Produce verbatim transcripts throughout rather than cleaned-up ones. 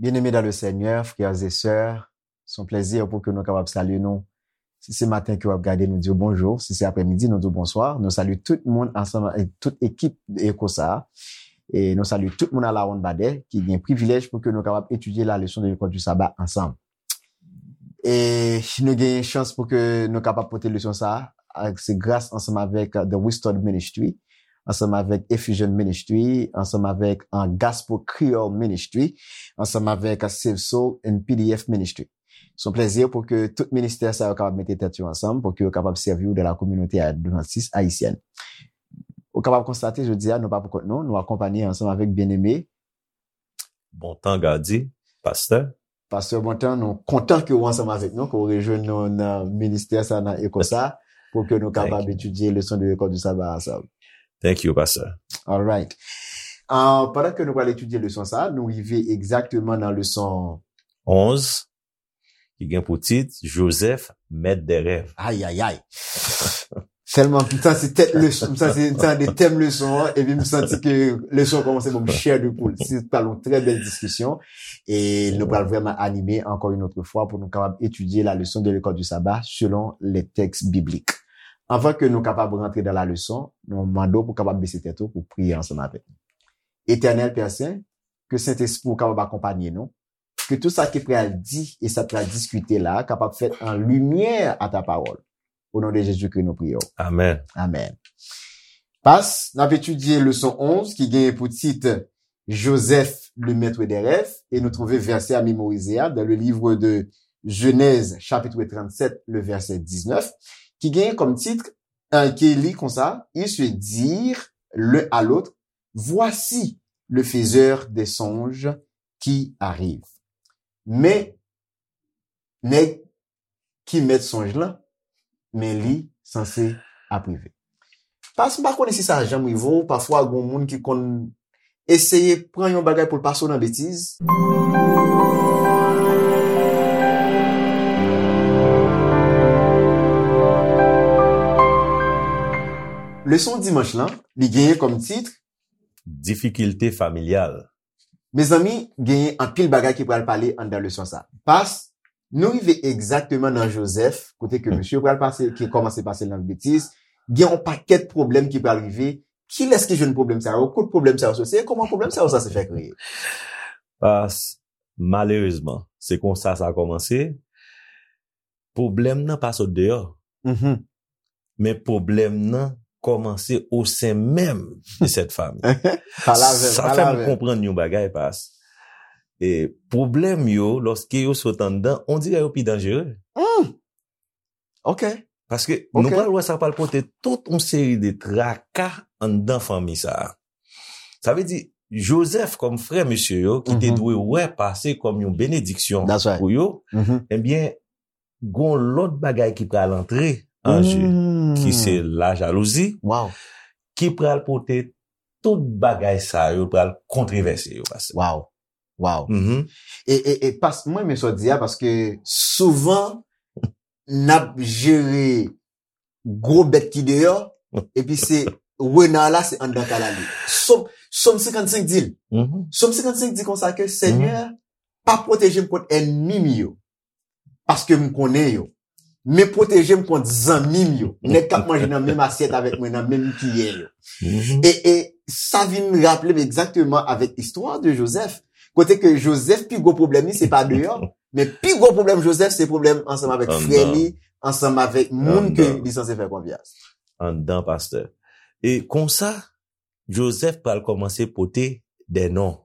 Bien-aimés dans le Seigneur, frères et sœurs, se yon plèzi pou ke nou kapab salye nou. Si se maten ke w ap gade, nou di w bonjou. Si se aprèmidi, nou di w bonswa. Nou salye tout moun ansanm avèk tout ekip Eko sa a. E nou salye tout moun a la ronn badè ki gen privilèj pou ke nou kapab etidye la leson de lekòl di saba ansanm. E nou gen chans pou ke nou kapab pote leson sa a, se gras ansanm avèk The Restored Ministry, ansanm avèk Effusion Ministry, ansanm avèk uh, Gospel Creole Ministry, ansanm avèk uh, Save Soul and P D F Ministry. Se yon plèzi pou ke tout ministè sa yo kapab mete tèt yo ansanm pou ke yo kapab sèvi w dans la communauté adventiste haïtienne. Ou kapab konstate jodi a nou pa pou kont nou, nou akonpanye ansanm avèk Bien-Aimé. Bontan Gady, pastè. Pastè Bontan, nou kontan ke w ansanm avèk nou, ke w rejwenn nou nan ministè sa, nan Eko sa, pou ke nou kapab etidye leson de lekòl di saba ansanm. Thank you, pastè. Alright. Uh, pandan ke nou pral etidye leson sa, nou rive egzakteman nan leson onz, ki gen pou tit Joseph, maître des rêves. Ayayay. Tèlman m santi tèt leson, m santi m tande tèm leson an, epi m santi ke leson an kòmanse ban m chair de poule. Se pral yon trè bèl diskisyon e nou pral vrèman anime encore une autre fois pou nou kapab etidye la leson de lekòl di saba selon les textes bibliques. Anvan ke nou kapab rantre dans la leson, nou mande w pou kapab bese tèt ou pou priye ansanm avèk nou. Etènèl Pè Sen, ke Sentespri w kapab akonpanye nou, ke tout sa ki pral di e sa k pral diskite la kapab fèt an limyè a ta pawòl. O non de Jezikri nou priye w. Amèn. Amèn. Pas, n ap etidye leson onz ki genyen pou tit Joseph, le maître des rêves, e nou twouve vèsè a memorize a dans le livre de Genèse, chapitre trente-sept, le verset dix-neuf, ki genyen kòm tit, euh, ki li konsa, ils se dirent l'un à l'autre, voici le faiseur des songes qui arrive. Men, nèg ki mèt sonj lan, men li sanse ap rive. Pas m pa konnen si sa janm rive w, pafwa gon moun ki konn eseye pran yon bagay pou l pase w nan betiz. Leson dimanch lan, li genyen kòm tit Difikilte familyal. Mezanmi, genyen anpil bagay ki pral pale anndan leson sa. Pas, nou rive egzakteman nan Joseph, kote ke mesye pral pase, ki kòmanse pase l nan betiz, gen yon pakèt pwoblèm ki pral rive. Kilès ki jwenn pwoblèm sa yo? Kot pwoblèm sa yo soti? E kòman pwoblèm sa yo sanse fè kreye? Pas, malerezman, se konsa sa kòmanse. Pwoblèm nan pa sot deyò. Men pwoblèm nan kòmanse o sen menm de sèt fanmi. Sa fè m konprann yon bagay, Pas. E pwoblèm yo, lòske yo sot anndan, on dirè yo pi danjere. Ok. Paske nou pral wè sa pral pote tout yon seri de traka anndan fanmi sa a. Sa vle di, Joseph kòm frè mesye yo, ki te dwe wè pase kòm yon benediksyon pou yo, ebyen, gon lòt bagay ki pral antre an je, ki se lajalouzi, ki pral pote tout bagay sa yo, pral kontrevèse yo, pastè. Wow. Wow. E, e, e pas, mwen renmen sa w di a, paske souvan, n ap jere gwo bèt ki deyò, epi se rena la, se anndan kay la li. Sòm, Sòm senkannsenk di l. Sòm senkannsenk di konsa ke, Senyè, pa pwoteje m kont ènmi m yo, paske m konnen yo. Men pwoteje m kont zanmi m yo, nèg k ap manje nan menm asyèt avèk mwen, nan menm kiyè yo. E, e sa vin raple m egzakteman avèk istwa de Joseph, kote ke Joseph pi gwo pwoblèm li, se pa deyò, men pi gwo pwoblèm Joseph, se pwoblèm ansanm avèk frè li, ansanm avèk moun ke li sanse fè konfyans. Anndan, pastè. E konsa, Joseph pral kòmanse pote de non.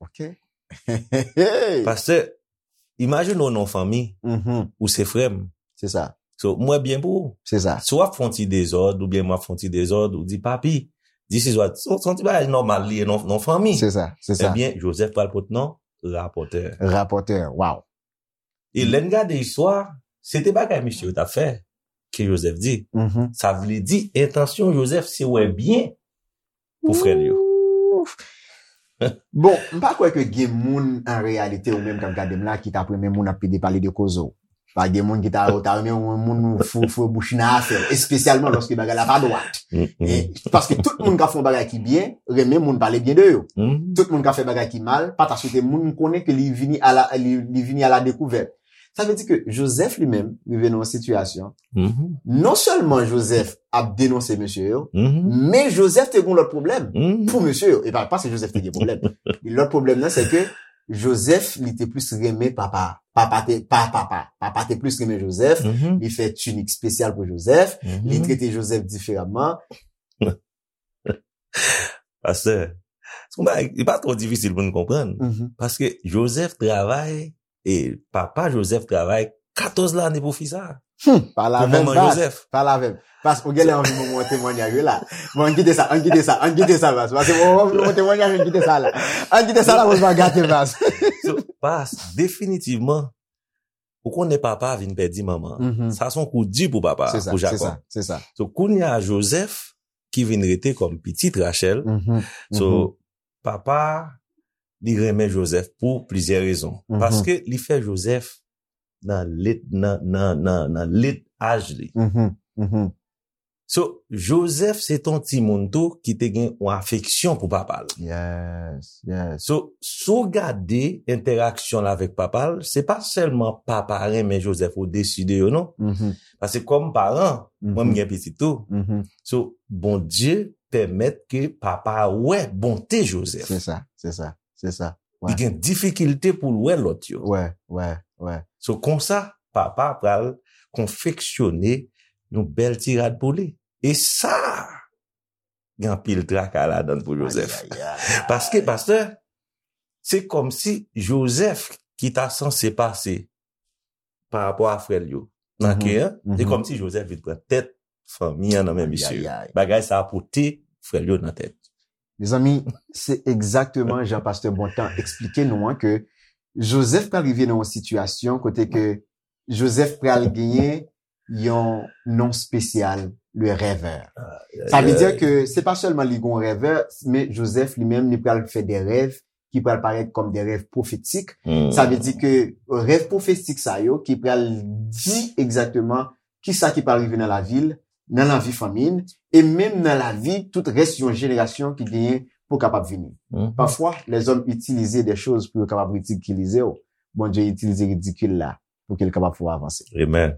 Ok. Pastè, imajine w nan yon fanmi, ou se frè m. Se sa. So, mwen byen pou ou. Se sa. Si w ap fè yon ti dezòd, oubyen mwen ap fè yon ti dezòd, ou di, papi, this is what, se yon ti bagay nòmal li ye nan yon fanmi. Se sa, se sa. Ebyen, Joseph pral pote non, rapòtè. Rapòtè, wow. E lè n gade istwa, se te bagay misye yo t ap fè, ke Joseph di. Sa vle di, entansyon Joseph se wè byen pou frè l yo. Bon, m pa kwè ke gen moun an reyalite ou menm k ap gade m la ki t ap renmen moun ap pede pale de koze w. Pa gen moun ki ta, ta renmen yon moun fou, fou bouch nan afè, espesyalman lòske bagay la pa dwat. E, paske tout moun ka fè yon bagay ki byen, renmen moun pale byen de yo. Tout moun ka fè bagay ki mal, pa ta swete moun konnen ke li vini a la, li, li vini a la dekouvèt. Sa vle di ke Joseph li menm rive nan yon sitiyasyon, non sèlman Joseph ap denonse mesye yo, men Joseph te gen lòt pwoblèm pou mesye yo. E pa, pa se Joseph te gen pwoblèm. Lòt pwoblèm nan, se ke Joseph, li te plis renmen papa. Papa te, pa papa. Papa te plis renmen Joseph. Li fè tinik espesyal pou Joseph. Li trete Joseph diferaman. Pastè, se yon bagay, li pa twò difisil pou n konprann. Paske Joseph travay, e papa Joseph travay katòz lane pou fi sa. Hmm, pale avè m, Joseph. Pale avè m. Pas, ou genlè anvi ban mwen yon temwanyaj wi la. Bon, ann kite sa, ann kite sa, ann kite sa, Pas. Paske ou anvi ban mwen yon temwanyaj, ann kite sa la. Ann kite sa la, pou n pa gate, Pas. So, Pas, definitivman, ou konnen papa vin pèdi manman. Sa se yon kou di pou papa, pou Jakòb. Se sa, se sa. So, kounye a Joseph, ki vin rete kòm pitit Rachèl. So, papa, li renmen Joseph pou plizyè rezon. Paske li fè Joseph nan lit, nan, nan, nan, nan lit aj li. So, Joseph se ton timoun tou ki te gen yon afeksyon pou papa l. Yes, yes. So, si w gade entèraksyon l avèk papa l, se pa sèlman papa renmen Joseph odesi de yo, non. Paske kòm paran, mwen m gen pitit tou. So, Bondye pèmèt ke papa a wè bonte Joseph. Se sa, se sa, se sa. Li gen difikilte pou l wè lòt yo. Wè, wè, wè. So, konsa, papa pral konfeksyone yon bèl ti rad pou li. E sa, gen anpil traka ladan l pou Joseph. Paske, pastè, se kòmsi Joseph ki ta sanse pase pa rapò a frè l yo nan ke an, se kòmsi Joseph vin pran tèt fanmi an nan men misye. Bagay sa a pote frè l yo nan tèt. Mezanmi, se egzakteman jan pastè Bontan eksplike nou an ke Joseph pral rive nan yon sitiyasyon kote ke Joseph pral genyen yon non espesyal, le rêveur. Sa vle di ke se pa sèlman li gon rêveur, men Joseph li menm li pral fè de rèv ki pral parèt kòm de rèv pwofetik. Sa vle di ke rèv pwofetik sa yo ki pral di egzakteman kisa ki pral rive nan lavi l, nan lavi fanmi l, e menm nan lavi tout rès yon jenerasyon ki genyen pou kapab vini. Pafwa, lèzòm itilize de choz pou yo kapab ridikilize w. Bondye itilize ridikil la pou ke l kapab fè w avanse. Amen.